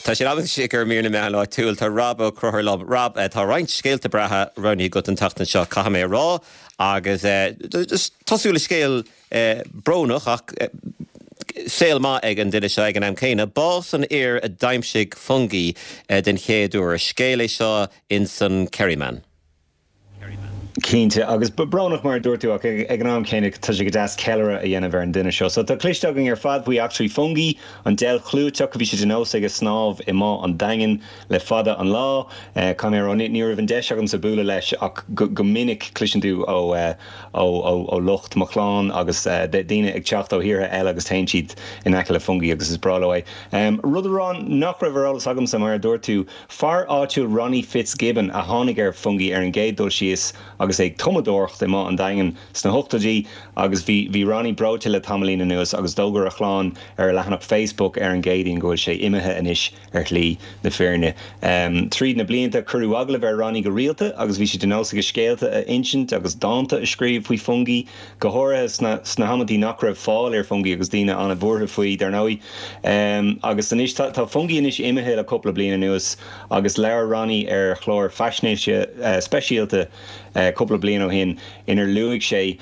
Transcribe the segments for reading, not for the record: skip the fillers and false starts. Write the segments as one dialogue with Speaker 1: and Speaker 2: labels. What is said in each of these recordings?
Speaker 1: Tá sé in am anois ag mír na meán áitiúil. Tá Rob Ó Conchúir liom. Rob, tá roinnt scéalta breátha roghnaithe agat an tseachtain seo, caithfidh mé a rá, agus tosú le scéal brónach ach saol maith ag an duine seo ag an am céanna. Bás an fhir a d'aimsigh Fungie den chéad uair. Scéal é seo ins an Kerryman.
Speaker 2: Cinnte, agus brónach mar a dúirt tú, ach ag an am céanna tá sé go deas ceiliúradh a dhéanamh ar an duine seo. So tá cloiste againn ar fad faoi eachtraí Fungie, an deilf chlúiteach a bhí sé de nós aige snámh i mBá an Daingin le fada an lá. Caithfidh mé a rá, ní raibh an deis agamsa bualadh leis ach go minic cloiseann tú ó ó lucht mo chlann agus daoine ag teacht ó thíortha eile agus téann siad in aice le Fungie agus is breá leo é. Rud a rá nach raibh ar eolas agamsa, mar a dúirt tú, fear áitiúil Ronnie Fitzgibbon a tháinig ar Fungie ar an gcéad dul síos agus é ag tumadóireacht i mBá an Daingin sna hochtóidí agus bhí bhí Ronnie breoite le tamaillín anuas agus d'fhógair a chlann ar a leathanach Facebook ar an gCéadaoin go bhfuil sé imithe anois ar shlí na fírinne. Tríd na blianta, cuireadh agallaimh ar Ronnie go rialta agus bhí sé de nós aige scéalta a insint agus dánta a scríobh faoi Fungie, go háirithe sna sna hamantaí nach raibh fáil ar Fungie agus daoine an-bhuartha faoi, dar ndóigh. Agus anois, tá tá Fungie anois imithe le cúpla bliain anuas agus labhair Ronnie ar chlár faisnéise speisialta cúpla bliain ó shin inar luaigh sé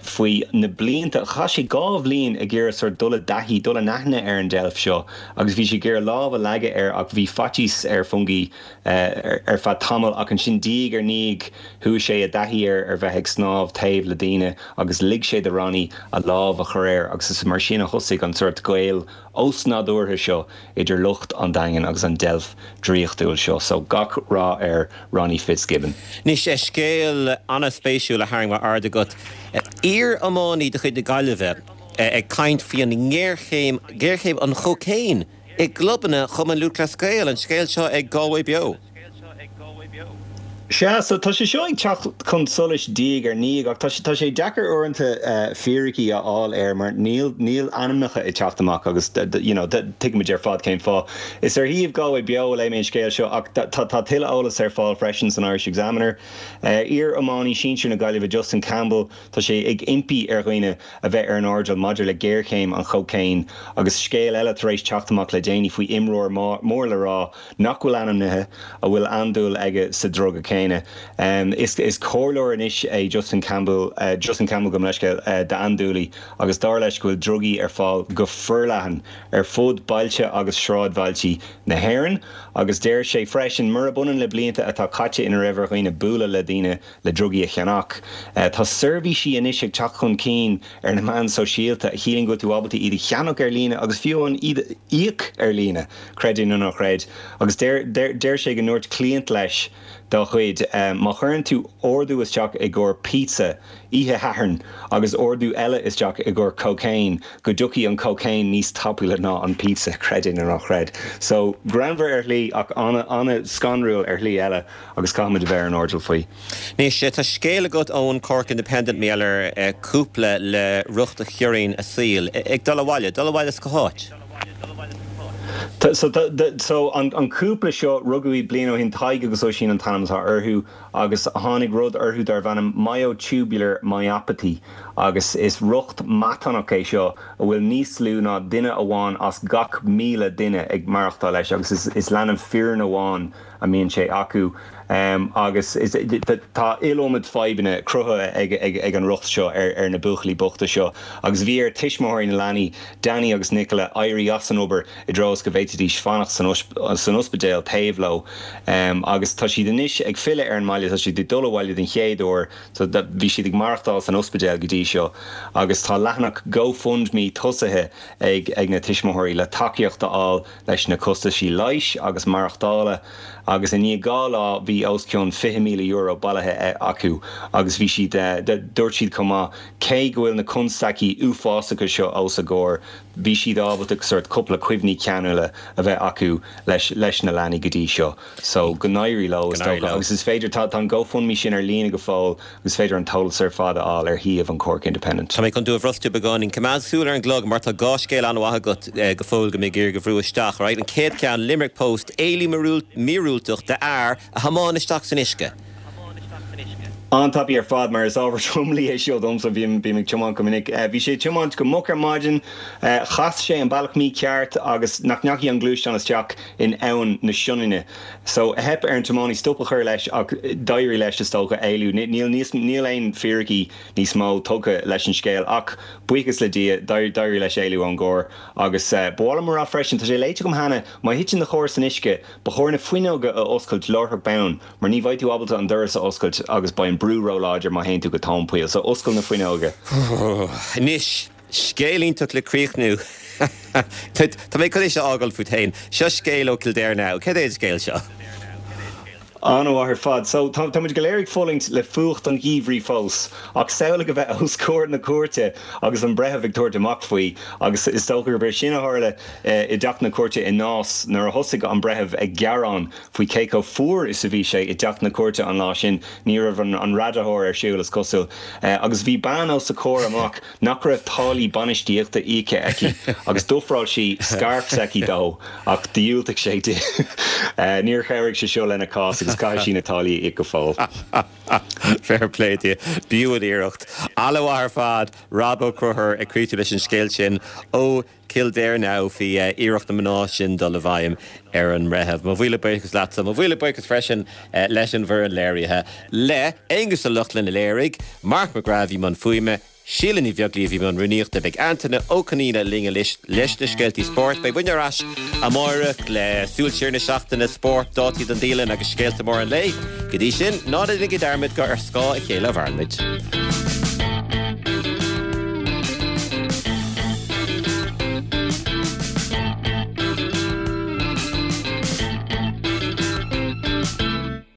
Speaker 2: faoi na blianta. Chaith sé 2 bhliain ag iarraidh sort dul i dtaithí, dul in aithne ar an deilf seo agus bhí sé ag iarraidh lámh a leagadh air ach bhí faitíos ar Fungie ar feadh tamaill ach ansin diaidh ar ndiaidh chuaigh sé i dtaithí air ar bheith ag snámh taobh le daoine agus lig sé do Ronnie a lámh a chur air agus is mar sin a thosaigh an sort gaol osnádúrtha seo idir lucht an Daingin agus an deilf draíochtúil seo. So gach rath ar Ronnie Fitzgibbon.
Speaker 1: Anois, scéal an-spéisiúil a tharraing m'aird agat. Iar-iománaí de chuid na Gaillimhe ag caint faoi an ngéarchéim, géarchéim an chócaon i gclubanna Chumann Lúthchleas Gael. An scéal seo ag Galway Beo.
Speaker 2: Sea, so tá sé seo ag teacht chun solais diaidh ar ndiaidh ach tá sé, tá sé deacair uaireanta fíricí a fháil air mar níl, níl ainmneacha ag teacht amach agus you know tuigimid ar fad cén fáth. Is ar shuíomh Galway Beo a léigh mé an scéal seo ach tá, tá tuilleadh eolais ar fáil freisin san Irish Examiner. Iar-iománaí sinsir na Gaillimhe Justin Campbell, tá sé ag impí ar dhaoine a bheith ar an airdeall maidir le géarchéim an chócaoin agus scéal eile tar éis teacht amach le déanaí faoi imreoir mór le rá nach bhfuil ainmnithe, a bhfuil andúil aige sa druga céanna. Is is comhairleoir anois é Justin Campbell, Justin Campbell gabh mo leithscéal, d'andúiligh agus dar leis go bhfuil drugaí ar fáil go forleathan ar fud bailte agus sráidbhailtí na hÉireann agus deir sé freisin, murab ionann le blianta atá caite ina raibh ar dhaoine bualadh le daoine le drugaí a cheannach, tá seirbhísí anois ag teacht chun cinn ar na meáin sóisialta a chiallaíonn go bhfuil tú ábalta iad a cheannach ar líne agus fiú amháin iad a íoc ar líne, creid é nó ná creid. Agus deir, deir, deir sé go ndúirt cliant leis dá chuid, má chuireann tú ordú isteach i gcomhair pizza oíche Shathairn agus ordú eile isteach i gcomhair cocaine, go dtiocfaidh an cocaine níos tapúla ná an pizza, creid é nó ná creid. So, greannmhar ar shlí ach ana, ana scanrúil ar shlí eile agus caithfimid a bheith ar an airdeall faoi.
Speaker 1: Anois, tá scéal agat ón Cork Independent mar gheall ar cúpla le riocht a chiorraíonn a saol ag dul abhaile, dul abhaile as cá háit?
Speaker 2: So, so an cúpla seo, rugadh iad bliain ó shin, Tadhg agus Oisín an t-ainm atá orthu, agus tháinig rud orthu darbh ainm myotubular myopathy agus is riocht matánach é seo a bhfuil níos lú ná duine amháin as gach 1,000 duine ag maireachtáil leis agus is, is leanbh fireann amháin a mbíonn sé acu agus tá iliomad fadhbanna cruthaithe ag an riocht seo ar na buachaillí bochta seo agus bhí ar tuismitheoirí na leanaí, Danny agus Nicola, éirí as an obair i dtreo is go bhféadfaidís fanacht san ospidéal taobh leo agus tá siad anois ag filleadh ar an mbaile, tá siad ag dul abhaile den chéad uair, bhí siad ag maireachtáil san ospidéal go dtí seo agus tá leathanach GoFundMe tosaithe ag na tuismitheoirí le tacaíocht a fháil leis na costaisí leighis agus maireachtála agus i ndiaidh 2 lá bhí os cionn €20,000 bailithe acu agus bhí siad, dúirt siad chomh maith, cé go bhfuil na constaicí uafásacha seo os a gcomhair, bhí siad ábalta sórt cúpla cuimhní ceanúla a bheith acu leis leis na leanaí go dtí seo. So, go n-éirí leo, is dócha. Agus is féidir, tá an GoFundMe sin ar líne go fóill agus is féidir an t-eolas ar fad a fháil ar shuíomh an Cork Independent.
Speaker 1: Tá mé chun tú a bhrostú beagáinín. Coimeád súil ar an gclog mar tá 2 scéal an-mhaith agat go fóill go mbeidh ag iarraidh a bhrú isteach. Alright, an chéad cheann, Limerick Post, éalú míorúilteach d'fhear a thiomáin isteach san uisce.
Speaker 2: An-tapaidh ar fad, mar is ábhar tromluí é seo domsa, bím ag tiomáint go minic. Bhí sé ag tiomáint go moch ar maidin, chas sé an bealach mícheart agus nach ndeachaigh an gluaisteán isteach in Abhainn na Sionainne. So, theip ar an tiománaí stop a chur leis ach d'éirigh leis, is dócha, éalú. Níl níos, níl aon fíricí níos mó tugtha leis an scéal ach, buíochas le Dia, d'éirigh leis éalú ón gcarr. Agus ba mhaith liom a rá freisin, tá sé léite agam cheana, má thiteann do charr san uisce, ba chóir na fuinneoga a oscailt láithreach bonn mar ní bheidh tú ábalta an doras a oscailt agus beidh an brú ró-láidir má théann tú go tóin poill. So, oscail na fuinneoga.
Speaker 1: Anois, scéal iontach le críochnú. Tá mé chun é seo a fhágáil fút féin. Seo scéal ó Kildare Now. Céard é an scéal seo?
Speaker 2: An-mhaith ar fad. So, tá muid go léir ag fulaingt le fuacht an gheimhridh fós, ach samhlaigh a bheith os comhair na cúirte agus an breitheamh ag tabhairt amach faoi, agus is dócha gurb é sin a tharla i dteach na cúirte i Nás nuair a thosaigh an breitheamh ag gearán faoi cé chomh fuar is a bhí sé i dteach na cúirte an lá sin. Ní raibh an radaitheoir ar siúl, is cosúil, agus bhí bean os a comhair amach nach raibh táillí bainistíochta íoctha aici agus d'ofráil sí scairf s'aici dó ach dhiúltaigh sé di. Níor chabhraigh sé seo lena cás agus caithfidh sí na táillí a íoc go fóill.
Speaker 1: Fair play di. B'fhiú an iarracht. An-mhaith ar fad, Rob Ó Conchúir ag críochnú leis an scéal sin ó Kildare Now faoi iarracht na mná sin dul i bhfeidhm ar an mbreitheamh. Mo mhíle buíochas leatsa. Mo mhíle buíochas freisin leis an bhfoireann léirithe, le Aonghus Ó Lochlainn a léirigh, Mark McGrath a bhí i mbun fuaime, Síle Ní Bheaglaoí a bhí i mbun rúnaíochta. Beidh Antaine Ó Conaola linn anois leis na scéaltaí spóirt. Beidh muidne ar ais amáireach le súil siar na seachtaine, spórt, dátaí don dialann agus scéalta móra an lae. Go dtí sin, ná déanaigí dearmad gur ar scáth a chéile a mhaireann muid.